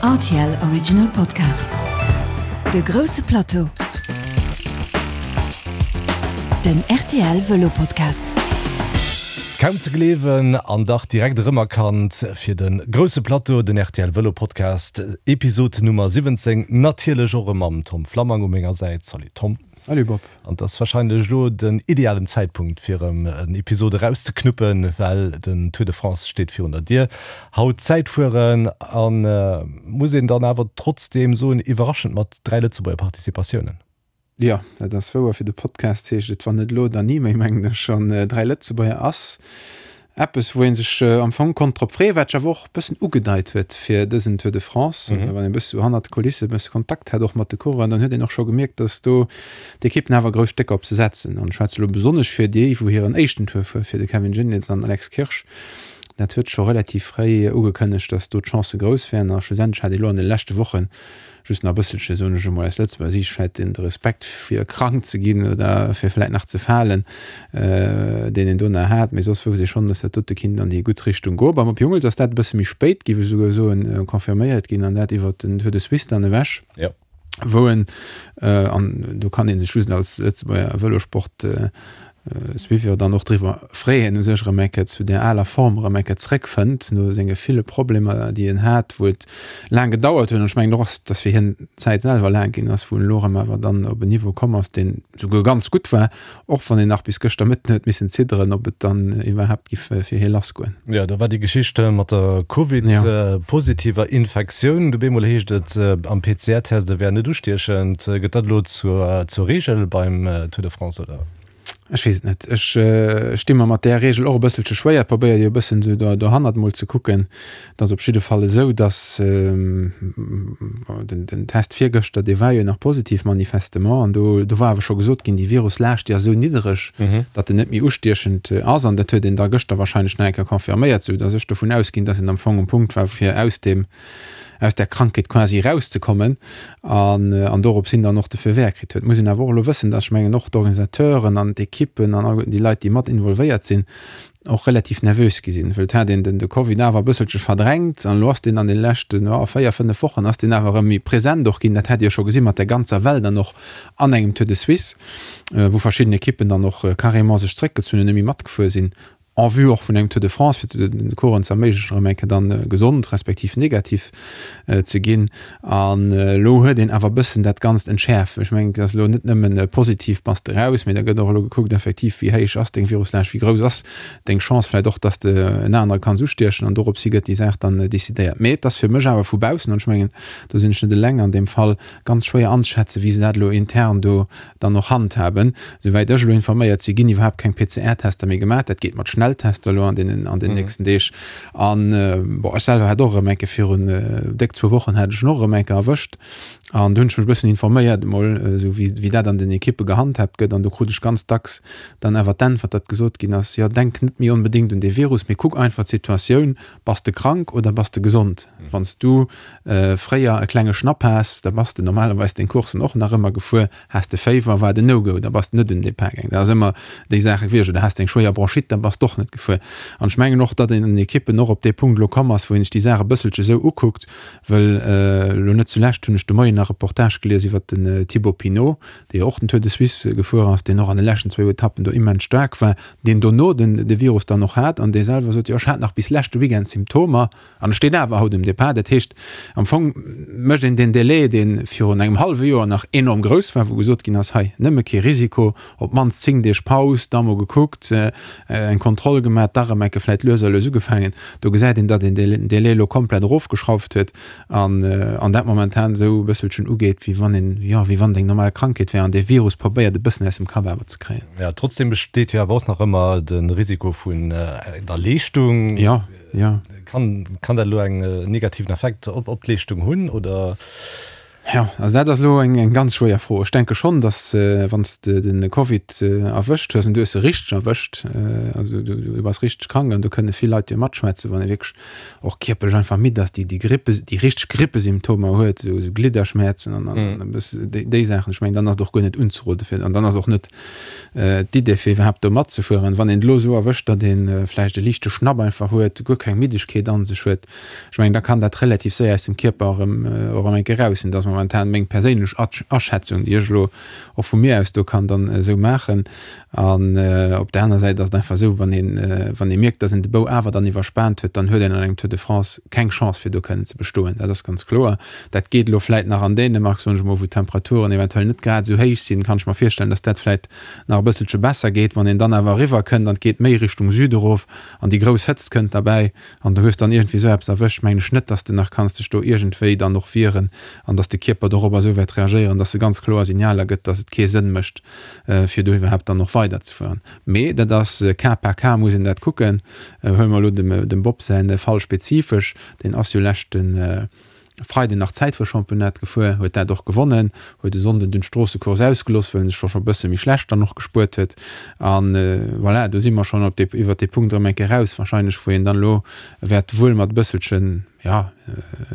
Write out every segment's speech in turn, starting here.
Rtl Original Podcast. De grousse Plateau. Den rtl Vëlo Podcast. Kaum ze gleewen an dach direkt erëmerkannt fir de grousse Plateau, den rtl Vëlo Podcast, Episod Nummer 17, natierlech och erëm mam Tom Flammang u menger Säit. Salut Tom. Salut Bob. An et ass wahrscheinlech elo den idealen Zäitpunkt fir erëm en Episod erauszeknuppen, well den Tour de France steet virun der Dier. Haut Zäitfueren an, muss een dann awer trotzdeem soen, iwwerraschend mat 3 Lëtzebuerger Participatiounen. Jo, dat ass wouer. Fir de Podcast heescht et Wann net elo, dann ni méi, mengen ech. An 3 Lëtzebuerger ass Eppes, wou ee sech am Fong konnt drop freeën, wat sech awer och e bëssen ugedeit huet fir dësen Tour de France. Also wann een e bësse sou hannert de Kulisse e bësse Kontakt hat och mat de Coureuren, dann huet een och scho gemierkt, datt do d'Ekippen awer grouss Stécker op se setzen. An ech schwätze elo besonnesch fir déi, wou hiren éischten Tour fuer, fir de Kevin Geniets an Alex Kirsch. Dat huet scho relativ fréi ugekënnegt, datt do d'Chancë grouss wären. A schlussendlech hat ee lo an de leschte Wochen Just nach e bësselche, soen ech emol, aus Lëtzebuerger Siicht vläit den Respekt fir krank ze ginn oder fir vläit nach ze falen, deen een do nach hat. Mee soss wousst ee schonn, dass dat dote kinnt an déi gutt Richtung goen. Beim Op Jungels ass dat e bësse méi spéit, géif ech esouguer soen, confirméiert ginn an dat iwwert den Tour de Suisse dann ewech, wou en, an do kann ee sech just als Lëtzebuerger Vëlosport Suiveur dann och driwwer freeën, u sech erëm eng Kéier zu där aler Form erëm eng Kéier zréckfënnt, no senge ville Problemer, déi en hat, wou et laang gedauert huet. An ech mengen och, dass fir hien d'Zäit selwer laang ginn ass, wou en elo erëm awer dann op en Niveau komm ass, deen souguer ganz gutt war, och wann een nach bis gëschter Mëtten huet missen zidderen, ob et dann iwwerhaapt giff fir hie lassgoen. Jo, da war déi Geschicht mat der Covid-positiver Infektioun. Du bemol heescht et am PCR-Test, e wär net ustiechend. Gëtt dat elo zur Reegel beim Tour de France, oder? Ech weess et net. Ech sti mer mat där Reegel och e bësselche schwéier. Probéier jo e bëssen esou do dohannert mol ze kucken. Et ass op jidde Fall esou, datt den den Test virgëschter, dee war jo nach positiv manifestement an do do war awer scho gesot ginn, déi Viruslaascht, déi ass esou niddereg, datt en net méi ustiechend ass an dat huet een da gëschter wahrscheinlech nach eng Kéier confirméiert, sou datt ech dovun ausginn, datt een am Fong um Punkt war fir aus deem aus där Krankheet quasi erauszekommen an, an dorops hin dann och de Feu vert kritt huet. Muss een awer och elo wëssen, dass, ech mengen, och d'Organisateuren an d'Ekippen an alleguerten déi Leit, déi mat involvéiert sinn, och relativ nervös gi sinn, well et hat een den, de Covid awer e bësselche verdrängt an elo ass deen an de leschten, jo, 4, 5 Wochen ass deen awer erëm méi present och ginn. Dat hat ee jo scho gesi mat der ganzer Well dann och an engem Tour de Suisse, wou verschidden Ekippen dann och carrément sech zréckgezunn hunn, net méi matgefuer sinn. en vue och vun engem Tour de France, fir de Coureuren ze erméiglechen, erëm eng Kéier dann gesond respektiv negativ ze ginn. An elo huet een awer e bëssen dat Ganzt entschäerft. Ech mengen, et ass elo net nëmmen positiv bass de raus, mee da gëtt och elo gekuckt effektiv, wéi héich ass deng Viruslaascht, wéi grouss ass deng Chance vläicht och, dass de en anere kanns ustiechen. An dorops hi gëtt déi Saach dann decidéiert. Mee et ass fir mech awer vu baussen, an ech mengen, do sinn ech net eleng an deem Fall, ganz schwéier anzeschätzen, wéi se dat elo intern do dann och handhaben. Souwäit ech elo informéiert si ginn iwwerhaapt keng PCR-Tester méi gemaach. Dat geet mat Schnelltester elo an deenen an den nächsten Deeg. An bon, ech selwer hat och erëm eng Kéier virun déck zwou Wochen hat ech en och erëm eng Kéier erwëscht. An do hunn ech mech e bëssen informéiert emol, esou wéi wéi dat an den Ekippe gehandhaabt gëtt. An do krut ech ganz dacks dann awer d'Äntwert, datt gesot ginn ass, jo denk net méi onbedéngt un dee Virus, mee kuck einfach d'Situatioun, bass de krank oder bass de gesond? Wann s du fréier e klenge Schnapp has, da bass de normalerweis deng Coursen och nach ëmmer gefuer. Has de Féiwer, war et en No-Go, da bass de net un den Depart gaangen. Dat ass ëmmer déi Saache gewiescht. Oder has de eng schwéier Bronchite, da bass de och net gefuer. An ech mengen och, datt een an den Ekippen och op dee Punkt elo komm ass, wou een sech déi Saach e bësselche esou ukuckt, wëll elo net zulescht hunn ech de Moien nach Reportage gelies iwwert den Thibaut Pinot, dee jo och den Tour de Suisse gefuer ass, deen och an de leschten zwou Etappen do immens staark war, deen dono den de Virus dann och hat an dee selwer sot, jo ech hat nach bis leschte Weekend Symptomer an ech stinn awer haut um Depart. Dat heescht, am Fong mécht een deen Delai, dee virun engem hallwe Joer nach enorm grouss war, wou gesot ginn ass, hei nëmme kee Risiko, op d'mannst 10 Deeg Paus, da mol gekuckt, eng Kontroll gemaach, da erëm eng Kéier vläicht lues a lues ugefaangen. Do gesäit een, datt een deen Delai elo komplett erofgeschrauft huet an an dat momentan esou e bësselchen ugeet, wéi wann een, jo, wéi wann et eng normal Krankheet wär an dee Virus probéiert e bëssen aus dem Kapp awer ze kréien. Jo, trotzdem besteet jo awer och nach ëmmer de Risiko vun der Leeschtung. Jo. Ja. Kann, kann dat elo eng negativen Effekt op, op d'Leeschtung hunn oder? Jo, also dat ass elo eng ganz schwéier Fro. Ech denke schonn, datt wann s de de Covid erwëscht hues an du hues e richteg erwëscht, also du du bass richteg krank an do kënne vill Leit jo matschwätzen, wann ee wierklech och kierperlech einfach midd ass, déi déi Grippe déi richteg Grippesymptomer huet, esou esou Glidderschmäerzen an an e bësse déi déi Saachen, ech mengen, dann ass et och guer net unzerode fir an dann ass och net d'Idee fir iwwerhaapt do matzefueren. Wann een et elo esou erwëscht, datt ee vläicht e liichte Schnapp einfach huet, guer keng Middegkeet an sech huet, Ech mengen, da kann dat relativ séier aus dem Kierper erëm och erëm eng Kéier eraus sinn. Dat ass momentan meng perséinlech Aschätzung, déi ech elo och vu mir aus do kann dann esou maachen. An op där aner Säit ass et einfach esou, wann een, wann ee mierkt, datt een de Bou awer dann iwwerspaant huet, dann huet een an engem Tour de France keng Chance fir do kënnen ze bestoen. Dat ass ganz kloer. Dat geet elo vläit nach an Dänemark, soen ech emol, wou d'Temperaturen eventuell net grad esou héich sinn, kann ech mer virstellen, datt dat vläit nach e bësselche besser geet. Wann een dann awer eriwwer kënnt an et geet méi Richtung Süde erof an déi grouss Hëtzt kënnt derbäi, An du hues dann iergendwéi esou eppes erwëscht, mengen ech net, dass de nach kanns dech do iergendwéi dann och wieren an dass de Kierper dorobber esou wäert reagéieren, dass e ganz kloer Signaler gëtt, dass et kee Sënn mécht, fir do iwwerhaapt dann och weiderzefueren. Mee dat ass Cas par cas muss een dat kucken. Huele mer elo dem Bob säi Fall spezifesch, deen ass jo leschte Freiden nach Zäitfuerchampionnat gefuer, huet dat och gewonnen, huet e Sonnden dunn d'Stroossecourse ausgeloss, well en sech scho e bësse méi schlecht dann och gespuert huet. An voilà, do si mer schonn op dee, iwwert dee Punkt erëm eng Kéier raus wahrscheinlech, wou een dann elo wäert wuel mat e bësselchen, jo,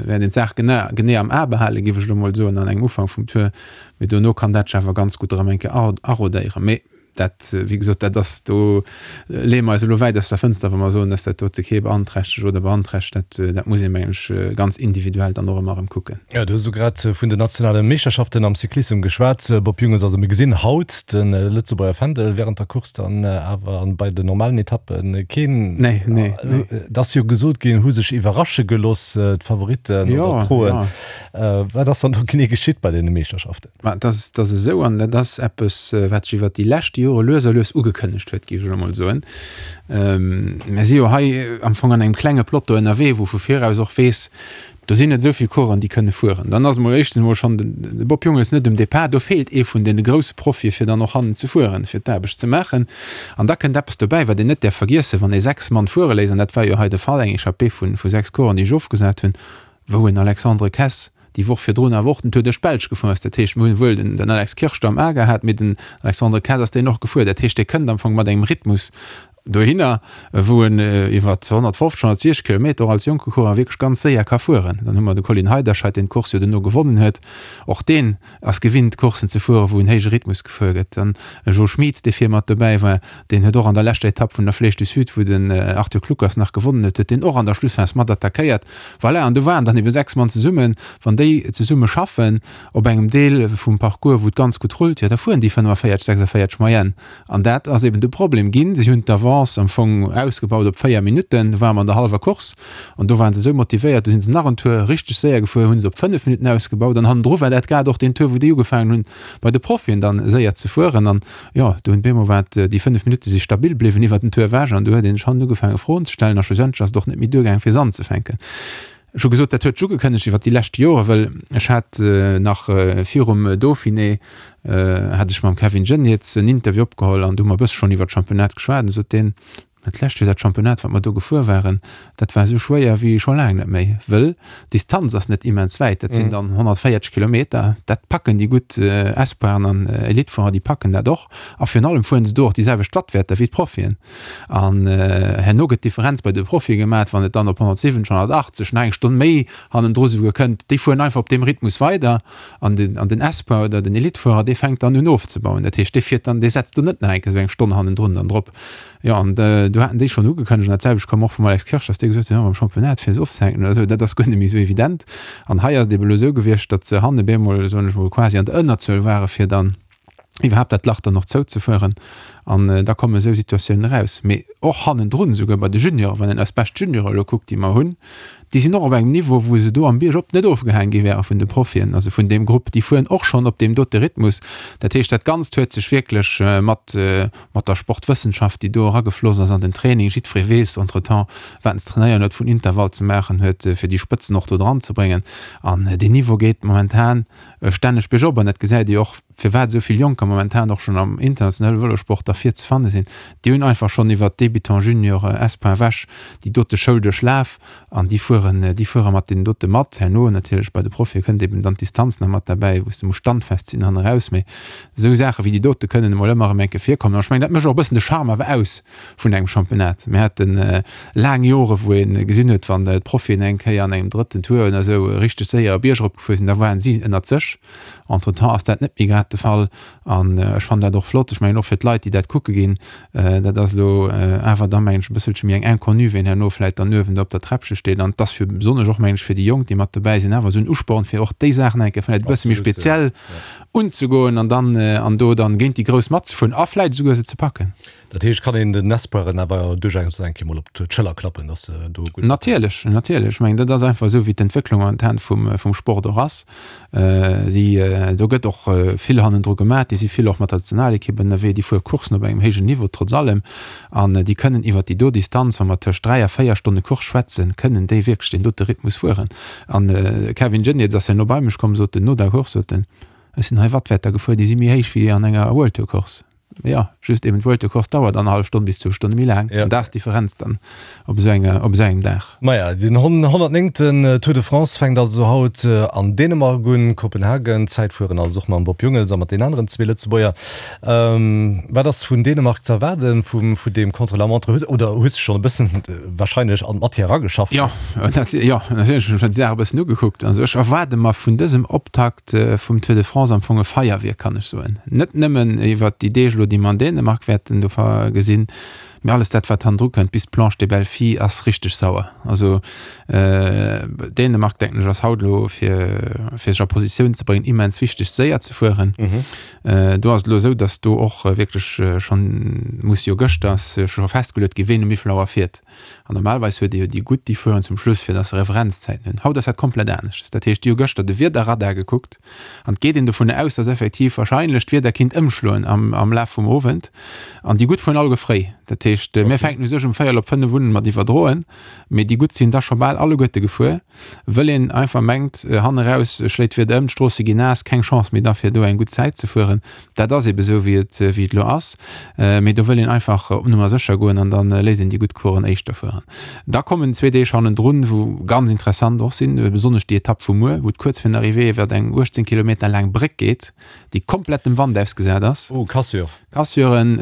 wäert een d'Saach gene, genee am A behalen, géif ech elo mol soen, an engem Ufank vum Tour. Mee dono kann dat sech awer ganz gutt erëm eng Kéier arodéieren. Mee Dat, wéi gesot, dat ass, do leeë mer eis elo wäit aus der Fënster, wa mer soen, dass dat dote kee beanträchtegt oder beanträchtegt. Dat, dat muss ee mengen ech ganz individuell dann och ëmmer erëm kucken. Jo, du hues elo grad vun den nationale Meeschterschaften am Cyclissem geschwat, Bob Jungels. Also mir gesinn haut de Lëtzebuerger Fändel während der Course dann awer an bei den normalen Etappe keen. Nee, nee, nee. Et ass jo gesot ginn, hu sech iwwerrasche geloss, d'Favoritten oder d'Proen. Wat ass dann do genee geschitt bei deene Meeschterschaften? Ma dat ass, dat ass esou, an dat ass eppes, wat sech iwwert déi lescht Jore lues a lues ugekënnegt huet, géif ech elo mol soen. Mir si jo hei am Fong an engem klenge Peloton ënnerwee, wou vu viraus och weess, do sinn net esou vill Coureuren, déi kënne fueren. Dann ass emol éischtens emol schonn de Bob Jungels net um Depart. Do feelt ee vun deene grousse Profie fir dann och hannen ze fueren, fir d'Aarbecht ze maachen. An da kënnt eppes dobäi, wat een net däerf vergiessen, Wann ee 6 Mann fuere léisst, an dat war jo hei de Fall, eng Echappée vu 6 Coureuren, déi sech ofgesat hunn, wou en Alexandre Kess déi Woch virdrun awer och den Tour duerch d'Belsch gefuer ass. Dat heescht, mir hunn wuel den Alex Kirsch do am A gehat, mee den Alexandre Kess ass deen och gefuer. Dat heescht, dee kënnt am Fong mat engem Rhythmus dohinner, wou en iwwer 150, 160 Kilometer och als jonke Coureur wierklech ganz séier ka fueren. Dann hu mer de Colin Heiderscheid, deen d'Course jo duerno gewonnen huet. Och deen ass gewinnt, Courssen ze fueren, wou en héije Rhythmus gefuer gëtt. Dann e Jo Schmieds, dee vir mat dobäi war, deen huet och an der leschter Etapp vun der Flèche du Sud, wou den Arthur Kluckers nach gewonnen huet, huet deen och an der Schlussphas mat attackéiert. Voilà, an do waren dann ebe 6 Mann zesummen. Wann déi zesumme schaffen op engem Deel vum Parcours, wou et ganz gutt rullt, jo da fueren déi 45, 46 Moyenne. An dat ass eben de Problem ginn. Si hunn d'Avance am Fong ausgebaut op 4 Minutten. Do ware mer an der hallwer Course an do ware se esou motivéiert, do si se nach en Tour richteg séier gefuer, hu se op 5 Minutten ausgebaut. An hannendru war dat grad och deen Tour, wou déi ugefaangen hunn, bei de Profien dann séier ze fueren. An jo, do hunn bemol war et, déi 5 Minutte si stabil bliwwen iwwert den Tour ewech an do huet een sech hannen ugefaange Froen ze stellen a schlussendlech ass et och net méi duergaang fir se anzefänken. Ech hu gesot, dat huet sech ugekënnegt iwwert déi lescht Jore, well ech hat nach virum Dauphiné hat ech mam Kevin Geniets en Interview opgeholl an do hu mer e bësse schonn iwwert d'Championnat geschwat an du sot deen, Dat lescht Joer, dat Championnat, wat mer do gefuer waren, dat war esou schwéier wéi scho laang net méi, wëll d'Distanz ass net immens wäit, dat sinn dann 140 Kilometer, dat packen déi gutt Espoiren an Elitefuerer, déi packen dat och. A virun allem fueren se do och déi selwecht Wattwäerter wéi d'Profien. An herno gëtt d'Differenz bei de Profie gemat, wann et dann op 170, 180, nach eng Stonn méi hannendru souguer kënnt, déi fueren einfach op deem Rhythmus weider an den, an den Espoir oder den Elitefuerer, dee fänkt dann un ofzebauen. Dat heescht, dee fiert dann, dee setzt do net nach eng Kéier esou eng Stonn hannendrun dann drop. Jo, an do haten déi schonn ugekënnegt, an dat selwecht koum och vum Alex Kirsch, datt dee gesot huet, jo, mam Championnat fir se ofzehänken oder esou, dat ass guer net méi esou evident. An hei ass et ebe elo esou gewiescht, datt se hanne bemol, soen ech mol, quasi an der Ënnerzuel ware fir dann iwwerhaapt dat Lach dann och zouzefueren. An da kommen esou Situatiounen eraus. Mee och hannendrun, esouguer bei de Junioren, wann een eis bescht Juniore elo kuckt, déi mer hunn, Déi sinn och op engem Niveau, wou se do am Bierg op net ofgehaang gi wäre vun de Profien, also vun deem Grupp. Déi fueren och schonn op deem dote Rhythmus. Dat heescht, dat Ganzt huet sech wierklech mat, mat der Sportwëssenschaft, déi do eragefloss ass an den Training, jiddweree weess entretemps, wat en ze trainéieren huet, vun Intervall ze maachen huet, fir déi Spëtzen och do dran ze bréngen. An deen Niveau geet momentan stänneg biergop an dat gesäit ee och. firwat esou vill Jonker momentan och schonn am internationale Vëlosport da vir ze fanne sinn. Déi hunn einfach schonn iwwert Débutant, Junior, Espoir ewech déi dote Schoul duerchlaf an déi fueren, déi fuere mat deenen dote mat. Herno natierlech bei de Profie kënnt eben dann d'Distanz nach mat derbäi, wou s de muss standfest sinn hanne raus. Mee esou Saache wéi déi dote kënnen emol ëmmer erëm eng Kéier virkommen. An ech mengen, dat mécht och e bëssen de Charme awer aus vun engem Championnat. Mir hate laang Jore wou ee gesinn huet, wann d'Profien eng Kéier an engem drëtten Tour oder esou richteg séier e Bierg eropgefuer sinn, da waren si ënnert sech. Entretemps ass dat net méi grad de Fall an ech fannen dat och flott. Ech mengen och fir d'Leit, déi dat kucke ginn, dat ass elo awer da mengen ech e bësselche méi eng Inconnue, ween herno vläit dann uewen do op der Träppche steet. An et ass fir besonnesch och mengen ech fir déi Jonk, déi mat dobäi sinn, awer esou en Usporn, fir och déi Saachen eng Kéier vläit e bësse méi speziell unzegoen an dann an do dann géint déi Grouss matzefueren a vläit esouguer se ze packen. Dat heescht, kann een den Espoiren awer duerchaus eng Kéier mol op d'Schëller klappen, dass se do gutt. Natierlech, natierlech. Ech mengen, dat ass einfach esou, wéi d'Entwécklung momentan vum, vum Sport och ass. Si, do gëtt och vill hannendru gemaach. Déi si vill och mat der Nationalekipp ënnerwee. Déi fuere Courssen op engem héijen Niveau trotz allem. An déi kënnen iwwer déi do Distanz, wa mer tëscht 3 a 4 Stonne Course schwätzen, kënnen déi wierklech deen dote Rhythmus fueren. An de Kevin Geniets ass herno bei mech komm, sot en, no der Course, sot en, Ech sinn hei Wattwäerter gefuer, déi si méi héich wéi an enger World Tour Course. Jo, just eben d'Vuelta-Course dauert annerhallef Stonn bis zwou Stonne méi laang. An dat ass d'Differenz dann op esou enger, op esou engem Dag. Maja, den 109. Tour de France fänkt also haut an Dänemark un, Kopenhagen. Zäitfueren also och mam Bob Jungels a mat den aneren zwee Lëtzebuerger. Wat ass vun Dänemark ze erwaarden, vum, vun deem Contre-la-montre? Hues, oder hues de schonn e bëssen warscheinlech an d'Matière erageschafft? Jo, jo, natierlech hunn ech mer déi Saach e bëssen ugekuckt. Also ech erwaarde mer vun dësem Optakt, vum Tour de France am Fong e Feierwierk, kann ech soen. Net nëmmen iwwert déi Deeg elo, déi mer an Dänemark wäerten do gesinn, mee alles dat, wat hannendru kënnt, bis d'Planche des Belles Filles ass richteg sauer. Also Dänemark, denken ech, ass haut elo, fir fir sech a Positioun ze bréngen, immens wichteg, séier ze fueren. Do ass et elo esou, datt do och wierklech schonn muss jo gëschter ass scho festgeluet ginn, ween um wéivill Auer fiert. An normalerweis huet ee jo déi gutt, déi fueren zum Schluss, fir dass se Referenzzäiten hunn. Haut ass dat komplett aneschters. Dat heescht, déi hu gëschter de Wiederradar gekuckt an et geet een dovun aus, dass effektiv wahrscheinlech d'Wieder kinnt ëmschloen am, am Laf vum Owend. An déi gutt fueren alleguer fréi. Dat heescht, mir fänken u sech um véierel op 5 un mat iwwerdroen, mee déi gutt sinn da scho bal alleguerte gefuer, wëll een einfach mengt, hanne raus schléit d'Wieder ëm, d'Stroosse ginn naass, keng Chance méi da fir do eng gutt Zäit ze fueren. Dat ass ebe sou wéi et wéi et elo ass, mee do wëll een einfach op Nummer sécher goen an da léisst een déi gutt Coursen éischter fueren. Da kommen zwee Deeg hannendrun, wou ganz interessant och sinn, besonnesch déi Etapp vu muer, wou et kuerz virun der Arrivée iwwert eng 18 Kilometer laang Bréck geet, déi komplett dem Wand ausgesat ass. Oh, Cassure. Cassuren,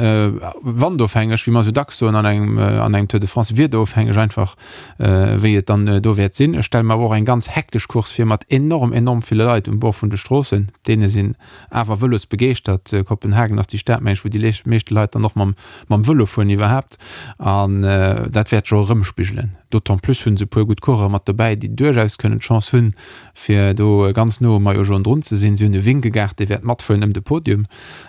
wandofhängeg, wéi mer esou dacks soen an engem an engem Tour de France, wiederofhängeg einfach, wéi et dann do wäert sinn. Ech stelle mer awer och eng ganz hektesch Course vir mat enorm, enorm ville Leit um Bord vun de Stroossen. Deene sinn awer vëlosbegeeschtert. Kopenhagen ass déi Stad, meng ech, wou déi meeschte Leit dann och mam, mam Vëlo fueren iwwerhaapt. An dat wäert sech och erëmspigelen. D'autant plus hunn se e puer gutt Coureuren mat dobäi, déi duerchaus kënnen d'Chance hunn, fir do ganz no um Maillot jaune drun ze sinn. Si hunn e Vingegaard, dee wäert matfueren ëm de Podium.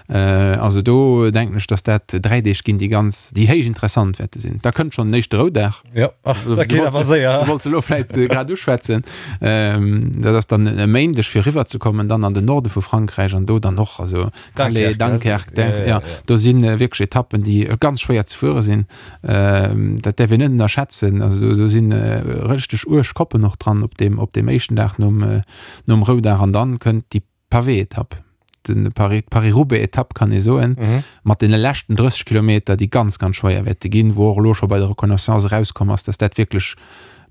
Also do denken ech, datt dat 3 Deeg ginn, déi ganz, déi héich interessant wäerte sinn. Da kënnt schonn den éischte Roudag. Jo, ach, dat geet awer séier. Du wollts elo vläit grad uschwätzen. Dat ass dann e Méindeg fir eriwwer ze kommen, dann an den Norde vu Frankräich an do dann och, also Calais, Dunkerque, Dunkerque, ja, do si wierklech Etappen, déi ganz schwéier ze fuere sinn. Dat däerf een net ënnerschätzen. Also do, do si richteg uerg Koppen och dran op deem, op deem éischten Dag nom, nom Roudag an dann kënnt déi Pavé-Etapp, den Paris, Paris-Roubaix-Etapp kann ee soen, mhm. mat den leschten 30 Kilometer, déi ganz, ganz schwéier wäerte ginn, wou och elo scho bei der Reconnaissance erauskomm ass, dass dat wierklech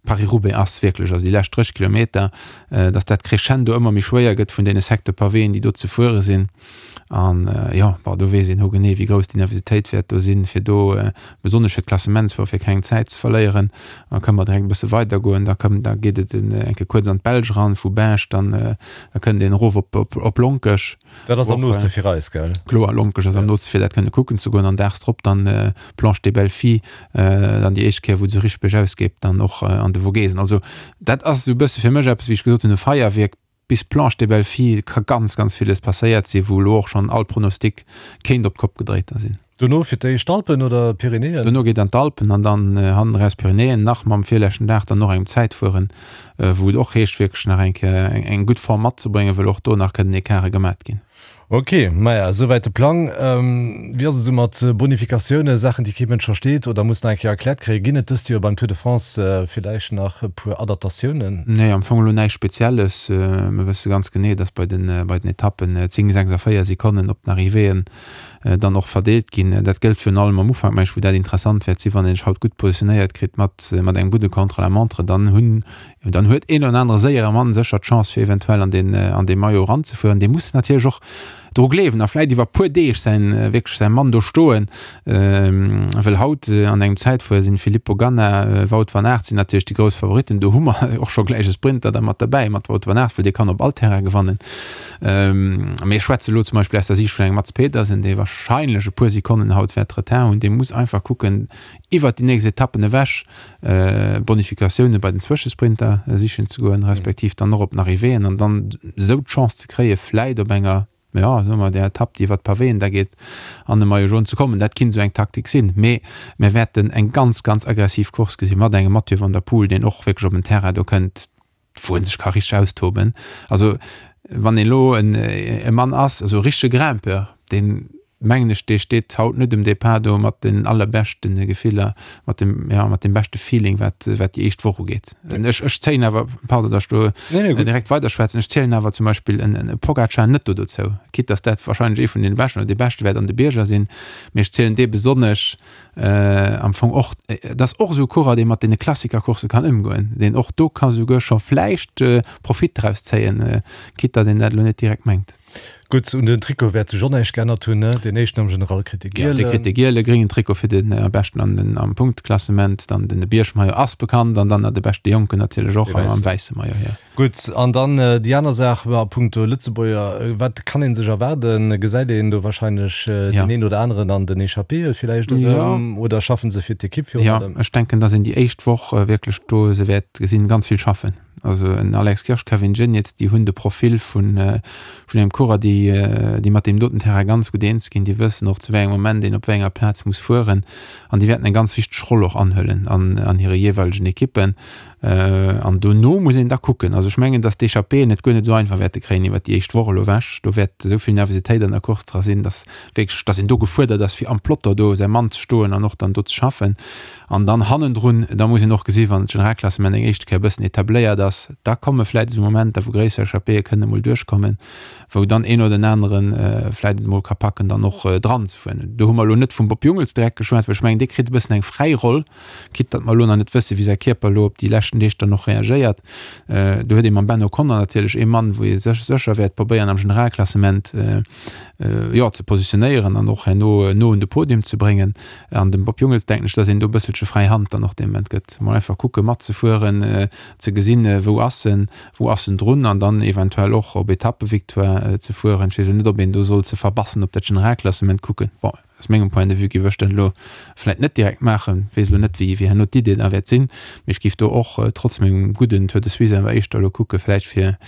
Paris-Roubaix ass, wierklech, also déi lescht 30 Kilometer, äh, dass dat crescendo ëmmer méi schwéier gëtt vun deene Secteur Pavéen, déi do ze fuere sinn. An äh, ja, bon, do weess een ho genee, wéi grouss déi Nervositéit wäert do sinn, fir do äh, besonnesch fir d'Klassementsfuerer fir keng Zäit ze verléieren. Da kënne mer direkt e bësse weidergoen, da kënn, da geet et en, eng Kéier kuerz an d'Belsch eran, vu Binche dann äh, Da kënnt een erof op, op, op Lonkech. Dat ass am nooste fir eis, gell? Kloer, Lonkech ass am nooste fir dat kënne kucken ze goen an daags drop dann äh, Planche des Belles Filles, äh, dann déi éischt Kéier wou et esou richteg bergaus geet, dann och äh, an de Vogesen. Also dat ass esou e bësse fir mech eppes, wéi ech gesot hunn, e Feierwierk. Bis Planche des Belles Filles ka ganz, ganz villes passéiert sinn, wou elo och schonn all Pronostic kéint op d'Kopp gedréit da sinn. Dono fir d'éischt d'Alpen oder d'Pyrenäen? Dono geet an d'Alpen an dann hannen eraus d'Pyrenäen, nach mam virleschten Dag dann och engem Zäitfueren, wou et och heescht wierklech nach eng Kéier eng gutt Form matzebréngen, wëll och do nach kënnen Ecarte gemat ginn. Ok, maja, esouwäit de Plang. Wéi ass et esou mat Bonifikatiounen, Saachen, déi kee Mënsch versteet oder muss nach eng Kéier erkläert kréien? Ginn et dëst Joer beim Tour de France villäicht nach e puer Adaptatiounen? Nee, am Fong elo näischt Spezielles. Mir wësse ganz genee, dass bei den, bei den Etappen 10, 6 a 4 Sekonnen op den Arrivéeën dann och verdeelt ginn. Dat gëllt virun allem am Ufank, meng ech, wou dat interessant wäert sinn, wann een sech haut gutt positionéiert kritt mat, mat engem gudde Contre-la-montre, dann hunn Dann huet een oder anere séiere Mann sécher d'Chance fir eventuell an deen an dee Maillot eranzefueren. Dee muss natierlech och dru gleewen a vläit iwwer puer Deeg säin wierklech säi Mann do stoen. Well haut an engem Zäitfuer sinn Filippo Ganna, Wout van Aert sinn natierlech déi grouss Favoritten. Do hu mer och scho gläich e Sprinter da mat derbäi mat Wout van Aert, well dee kann op all Terrain gewannen. Mee ech schwätze elo zum Beispill aus der Siicht vun engem Mads Pedersen, dee warscheinlech e puer Sekonnen haut wäert Retard hunn. Dee muss einfach kucken, iwwert déi nächst Etappen ewech Bonifikatioune bei den Zwëschesprinter sichen ze goen, respektiv dann och op den Arrivéeën an dann esou d'Chance ze kréie vläit op enger, jo soe mer där Etapp déi iwwer d'Pavéen da geet, an de Maillot jaune ze kommen. Dat kinnt esou eng Taktik sinn. Mee mir wäerten eng ganz, ganz aggressiv Course gesi mat engem Mathieu van der Poel, deen och wierklech op en Terrain do kënnt, wou en sech ka richteg austoben. Also wann een elo en e Mann ass, also e richtege Grimpeur, deen mengen ech, dee steet haut net um Depart do mat den allerbeschte Gefiller, mat dem, ja, mat dem beschte Feeling, wat, wat déi éischt Woch ugeet. Ech, ech zéien awer, pardon, datt ech do nee, nee, direkt weiderschwätzen, ech zielen awer zum Beispill en, en Pogacar net do dozou, quitte datt dat wahrscheinlech ee vun den beschten oder dee beschte wäert an de Bierger sinn, mee ech zielen dee besonnesch am Fong och, et ass och esou e Coureur, dee mat deene Klassikercoursse kann ëmgoen, deen och do ka souguer scho vläicht Profit draus zéien, quitte datt een dat elo net direkt mengt. Gutt, un den Trikot wäert sech och näischt geännert hunn, ne? Deen éischten am General kritt de gielen. Jo, dee kritt de giele, gréngen Trikot fir den beschten an den am Punktklassement, dann den Biergmaillot ass bekannt an dann de beschte Jonken natierlech och am wäisse Maillot, jo. Gutt, an dann déi aner Saach a punkto Lëtzebuerger, wat kann ee sech erwaarden? Gesäit een do wahrscheinlech deen een oder aneren an den Echappéeë villäicht erëm oder schaffen se fir d'Ekipp virun allem? Jo, ech denken, datt een déi éischt Woch wierklech do se wäert gesinn, ganz vill schaffen. Also en Alex Kirsch, Kevin Geniets, déi hunn de Profil vun vun engem Coureur, déi déi mat deem doten Terrain ganz gutt eens ginn, déi wëssen och zu wéi engem Moment een op wéi enger Plaz muss fueren an déi wäerten eng ganz wichteg Roll och anhuelen an an hire jeeweilegen Ekippen. An dono muss een da kucken. Also ech mengen, datt d'Echappéeën et guer net esou einfach wäerte kréien iwwert déi éischt Woch elo ewech. Do wäert esou vill Nervositéit an der Course dra sinn, datt wierklech, datt een do gefuerdert ass, fir am Peloton do säi Mann ze stoen an och dann do ze schaffen. An dann hannendrun, da muss een och gesinn, wann d'Generalklassement eng éischte Kéier e bëssen etabléiert ass, da komme vläicht esou Momenter, wou gréisser Echappéeë kënnen emol duerchkommen, wou dann een oder den anere vläicht et emol ka packen, dann och dranzefueren. Do hu mer elo net vum Bob Jungels direkt geschwat, well ech mengen, dee kritt e bëssen eng fräi Roll. Quitte datt mer elo nach net wëssen, wéi säi Kierper elo op déi leschten Deeg dann och reagéiert. Do huet ee mam Ben O'Connor natierlech ee Mann, wou ee sech sécher wäert probéieren am Generalklassement, jo, ze positionéieren an och herno no un de Podium ze bréngen. An dem Bob Jungels denken ech, datt een do e bësselche fräi Hand dann och dee Moment gëtt. Mol einfach kucke matzefueren, ze gesinn, wou ass en, wou ass en drun an dann eventuell och op Etappevictoire ze fueren. Ech weess elo net, ob een do soll ze verbassen op dat Generalklassement kucken. Bon. Aus mengem Point de vue géif ech dat elo vläit net direkt maachen. Weess elo net, wéi herno d'Idee da wäert sinn, mee ech géif do och trotz mengem gudden Tour de Suisse awer éischter elo kucke vläicht fir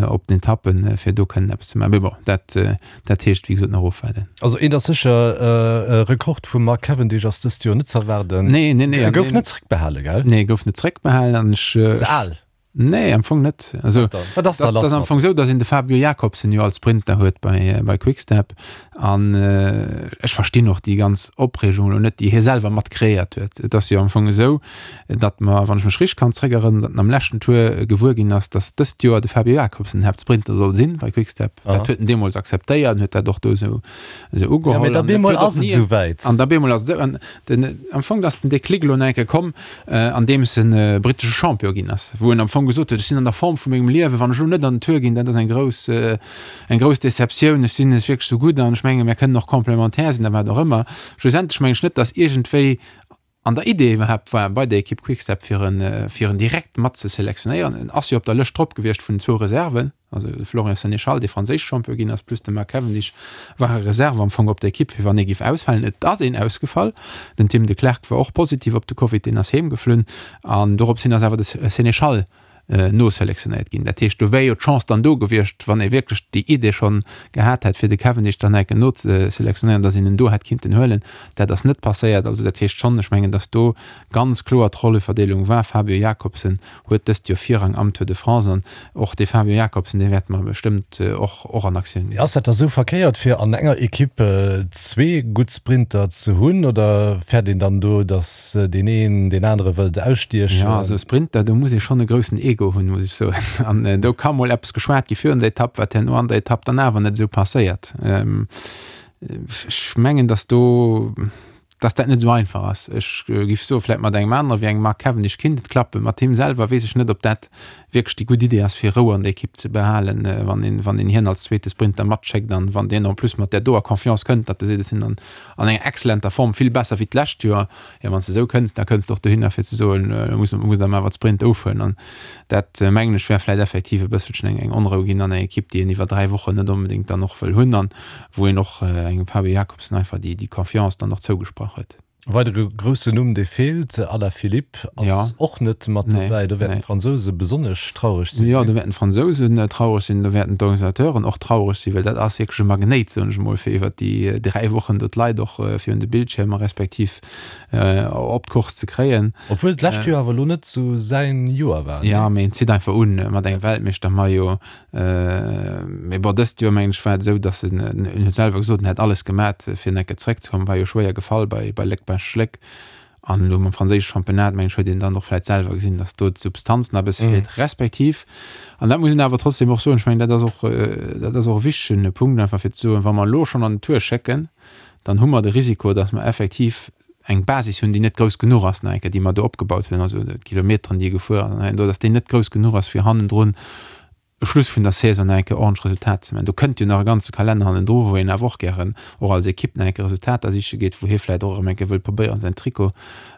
op den Etappen, fir do kënnen eppes ze maachen. Mee bon, dat, dat heescht wéi gesot nach ofwaarden. Also eent ass sécher, e Rekord vum Mark Cavendish ass dëst Joer net ze erwaarden. Nee, nee, nee. E gouf net zréckbehale, gell? Nee, e gouf net zréckbehalen an ech. Ze al. Nee, am Fong net. Also, Wat ass da lass? Dat ass am Fong esou, datt een de Fabio Jakobsen jo als Sprinter huet bei, bei Quickstep. An äh, ech verstinn och déi ganz Opreegung elo net, déi hie selwer mat kreéiert huet. Et ass jo am Fong esou, datt mer, wann ech mech richteg kann zréckerënneren, datt en am leschten Tour gewuer ginn ass, datt dëst Joer de Fabio Jakobsen den Haaptsprinter soll sinn bei Quickstep. Aha. Dat huet en deemools akzeptéiert an huet dat och do esou, esou ugeholl. Ja, mee da bemol ass et esouwäit. An da bemol ass et esou. An den, am Fong ass den Déclic elo nach eng Kéier komm, andeems en brittesche Champion ginn ass, wou en am Fong gesot huet, ech sinn an der Form vu mengem Liewen, wann ech elo net an den Tour ginn, dat ass eng grouss, eng grouss Deceptioun, ech sinn net wierklech esou gutt an ech menge mir kënnen och complémentaire sinn a wat och ëmmer. Schlussendlech meng ech net, datt iergendwéi an der Idee iwwerhaapt war bei der Ekipp Quick-Step fir en, fir en direkt mat ze selektionéieren. En ass jo op der Lëscht drop gewiescht vun den zwou Reserven. Also de Florian Sénéchal, dee franséische Champion ginn ass, plus de Mark Cavendish ware Reserve am Fong op der Ekipp, fir wann ee géif ausfalen. Et ass een ausgefall. Den Tim Declercq war och positiv op de Covid, deen ass heem geflunn. An dorops hin ass awer de Sénéchal. noselektionéiert ginn. Dat heescht, do wär jo d'Chance dann do gewiescht, wann ee wierklech déi Idee schonn gehat hätt, fir de Cavendish dann enke nozeselektionéieren, datt een en do hätt kinnten huelen. Dat ass net passéiert. Also dat heescht schonn, ech mengen, datt do ganz kloer d'Rolleverdeelung war. Fabio Jakobsen huet dëst Joer Virrang am Tour de France an och dee Fabio Jakobsen, dee wäerte mer bestëmmt och och an Aktioun gesinn. Ass dat da sou verkéiert, fir an enger Ekipp zwee gutt Sprinter ze hunn oder fäert een dann do, datt deen een deen anere wëllt ausstiechen. Jo, also Sprinter, do muss ee schonn e groussen Ego hunn, muss ech soen. An do ka mol eppes geschwat gi virun der Etapp, wat herno an der Etapp dann awer net esou passéiert. Ech mengen, datt do, datt dat net esou einfach ass. Ech géif soe vläicht mat engem anere wéi engem Mark Cavendish kinnt et klappen. Mat him selwer weess ech net, ob dat wierklech déi gutt Idee ass, fir Rou an der Ekipp ze behalen, wann een, wann een hien als zweete Sprinter matschéckt an wann deen en plus mat där doer Confiance kënnt, datt e seet, ech sinn an an enger exzellenter Form, vill besser wéi d'lescht Joer. Jo, wann s de esou kënns, da kënns de och dohinner fir ze soen, elo muss, muss der mer awer d'Sprint ofhuelen. An dat, mengen ech, wär vläicht effektiv e bësselchen eng, eng Onrou ginn an eng Ekipp, déi een iwwer 3 Wochen net onbedéngt dann och wëll hunn an wou een och engem Fabio Jakobsen einfach déi, déi Confiance dann och zougesprach huet. E weidere groussen Numm, dee feelt, Alaphilippe ass Ja. och net mat Nee, dobäi. Do wäerten nee. d'Fransouse besonnesch traureg sinn, Jo, do wäerten d'Fransousen traureg sinn, do wäerten d'Organisateuren och traureg sinn, well dat ass wierklech e Magnéit, soen ech emol, fir iwwer déi 3 Wochen do d'Leit och virun de Bildschiermer respektiv op d'Course ze kréien. Obwuel d'lescht Joer awer elo net esou säin Joer war, Jo, mee en zitt einfach un mat engem Weltmeeschtermaillot. Mee bon, dëst Joer mengen ech war et esou, datt en, en huet selwer gesot, en hätt alles gemat fir en enke zeréckzekommen, war jo schwéier gefall bei bei Léck-Bastogne-Léck. An elo mam franséische Championnat mengen ech huet een dann och vläit selwer gesinn, datt do d'Substanz nach e bësse feelt, respektiv, an dat muss een awer trotzdem och soen, ech mengen dat ass och, dat ass och e wichtegen Punkt einfach fir ze soen, wa mer elo schonn an den Tour schécken, dann hu mer de Risiko, datt mer effektiv eng Basis hunn, déi net grouss genuch ass, nach eng Kéier, déi mer do opgebaut hunn, also d'Kilometeren, déi e gefuer ass an hei an do, datt déi net grouss genuch ass, fir hannendrun e Schluss vun der Saison nach eng Kéier ordentlech Resultater ze maachen. Do kënnt jo nach e ganze Kalenner hannendru, wou een awer och gären och als Ekipp nach eng Kéier Resultater siche geet, wou hie vläicht och erëm eng Kéier wëllt probéieren, säin Trikot,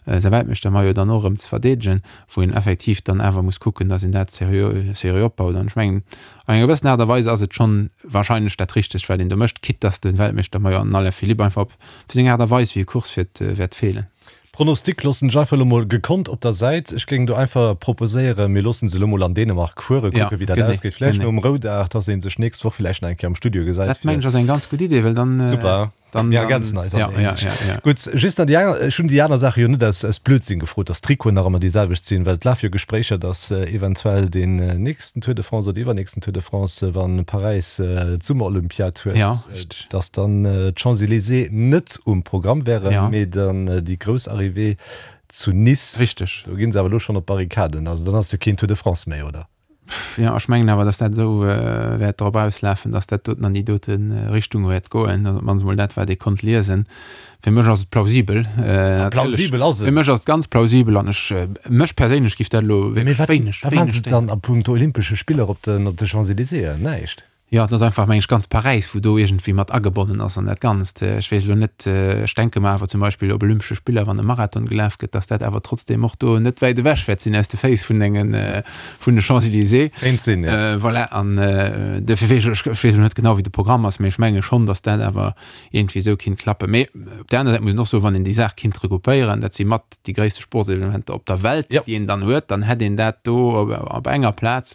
säi Weltmeeschtermaillot dann och erëm ze verdeedegen, wou een effektiv dann awer muss kucken, datt een dat seriö, seriö opbaut. An ech mengen, an enger gewëssen Aart a Weis ass et schonn wahrscheinlech dat Richtegt, wat een do mécht, quitte datt de Weltmeeschtermaillot an den Alaphilippe einfach op Fir seng Aart a Weis wéi e Course fiert wäert feelen. Pronostic loossen ech einfach elo mol gekonnt op der Säit. Ech géing do einfach proposéieren, mir loossen se elo mol an Dänemark fueren, kucken wéi dat ausgeet. Vläicht nom Roudag, dass ee sech nächst Woch vläicht nach eng Kéier am Studio gesäit. Dat mengen ech ass eng ganz gutt Idee, well dann. Super, mir ergänzen eis an där Hinsicht. Gutt, just nach déi aner, ech hunn déi aner Saache jo net aus Blödsinn gefrot, dass d'Trikoten nach ëmmer déi selwecht sinn, well et lafe jo Gespréicher, dass eventuell deen nächsten Tour de France oder iwwernächsten Tour de France, wa Paräis d'Summerolympiad huet, dass dann d'Champs-Élysées net um Programm wären, Ja. mee dann déi grouss Arrivée zu Nice. Richteg. Do ginn se awer elo schonn op d'Barrikaden. Also dann ass jo keen Tour de France méi, oder? Jo, ech mengen awer, dass dat esou wäert drop auslafen, dass dat doten an déi dote Richtung wäert goen. Also op d'mannst emol dat, wat ee konnt liesen. Fir mech ass et plausibel. Ah, plausibel ass et. Fir mech ass et ganz plausibel an ech, mech perséinlech giff dat elo Mee wierklech wat, wéineg, wat maachen wéineg se stéieren. dann a puncto Olympesche Spiller op den, op de Champs-Élysées? Näischt. Jo, et ass einfach, meng ech, ganz Paräis, wou do iergendwéi mat agebonnen ass an dat Ganzt. Ech weess elo net, ech denke mer awer zum Beispill op Olympesche Spiller, wann e Marathon gelaf gëtt, datt dat awer trotzdeem och do net wäit ewech wäert sinn aus de Féiss vun engen, vun de Champs-Élysées. Kéint sinn, jo. Voilà, an duerfir weess ech, ech weess elo net genau, wéi de Programm ass, mee ech menge schonn, datt dat awer iergendwéi esou kinnt klappen. Mee op där aner Säit muss een och soen, wann een déi Saach kinnt regroupéieren, dat si mat déi gréisste Sportsevenementer op der Welt, déi een dann huet, dann hätt een dat do op enger Plaz.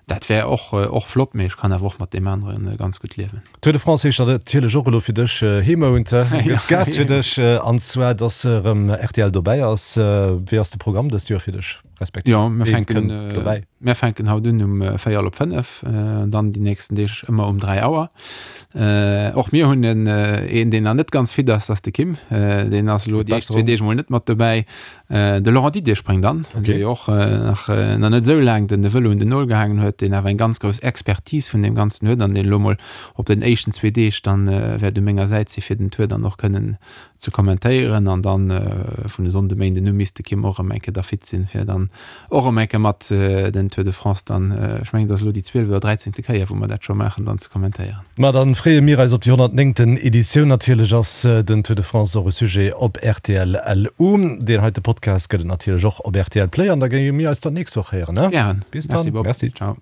Dat wär och och flott, mee ech kann awer och mat deem anere ganz gutt liewen. Tour de France heescht natierlech och elo fir dech Heemount. Gëtt Gas fir dech, an zwar dass erëm rtl dobäi ass. Wéi ass de Programm dëst Joer fir dech, respektiv Jo, mir ween fänken kënnt dobäi? mir fänken haut un um véierel op 5, an dann déi nächsten Deeg ëmmer um 3 Auer. Och mir hunn en een, deen nach net ganz fit ass, dat ass de Kim. Deen ass elo déi éischt zwee Deeg mol net mat dobäi. De Laurent Didier spréngt an, dee jo och nach nach net esou laang den de Vëlo un den Nol gehaangen huet, deen awer eng ganz grouss Expertise vun deem Ganzen huet an deen elo mol op den éischten zwee Deeg dann wäert u menger Säit si fir den Tour dann och kënnen ze kommentéieren. An dann vun e Sonnde, Méinden u misst de Kim och erëm eng Kéier da fit sinn, fir dann och erëm eng Kéier mat den Tour de France dann, ech mengen et ass elo déi zwieleft oder dräizéngte Kéier wou mer dat scho maachen, dann ze kommentéieren. Ma dann freeë mir eis op déi 109. Editioun. Natierlech ass den Tour de France och e Sujet op rtl LU. Deen heite Podcast gëtt et natierlech och op rtl Play an da géinge mir eis dann d'nächst Woch héieren, ne? Gären. Bis dann. Merci Bob. Merci. Ciao.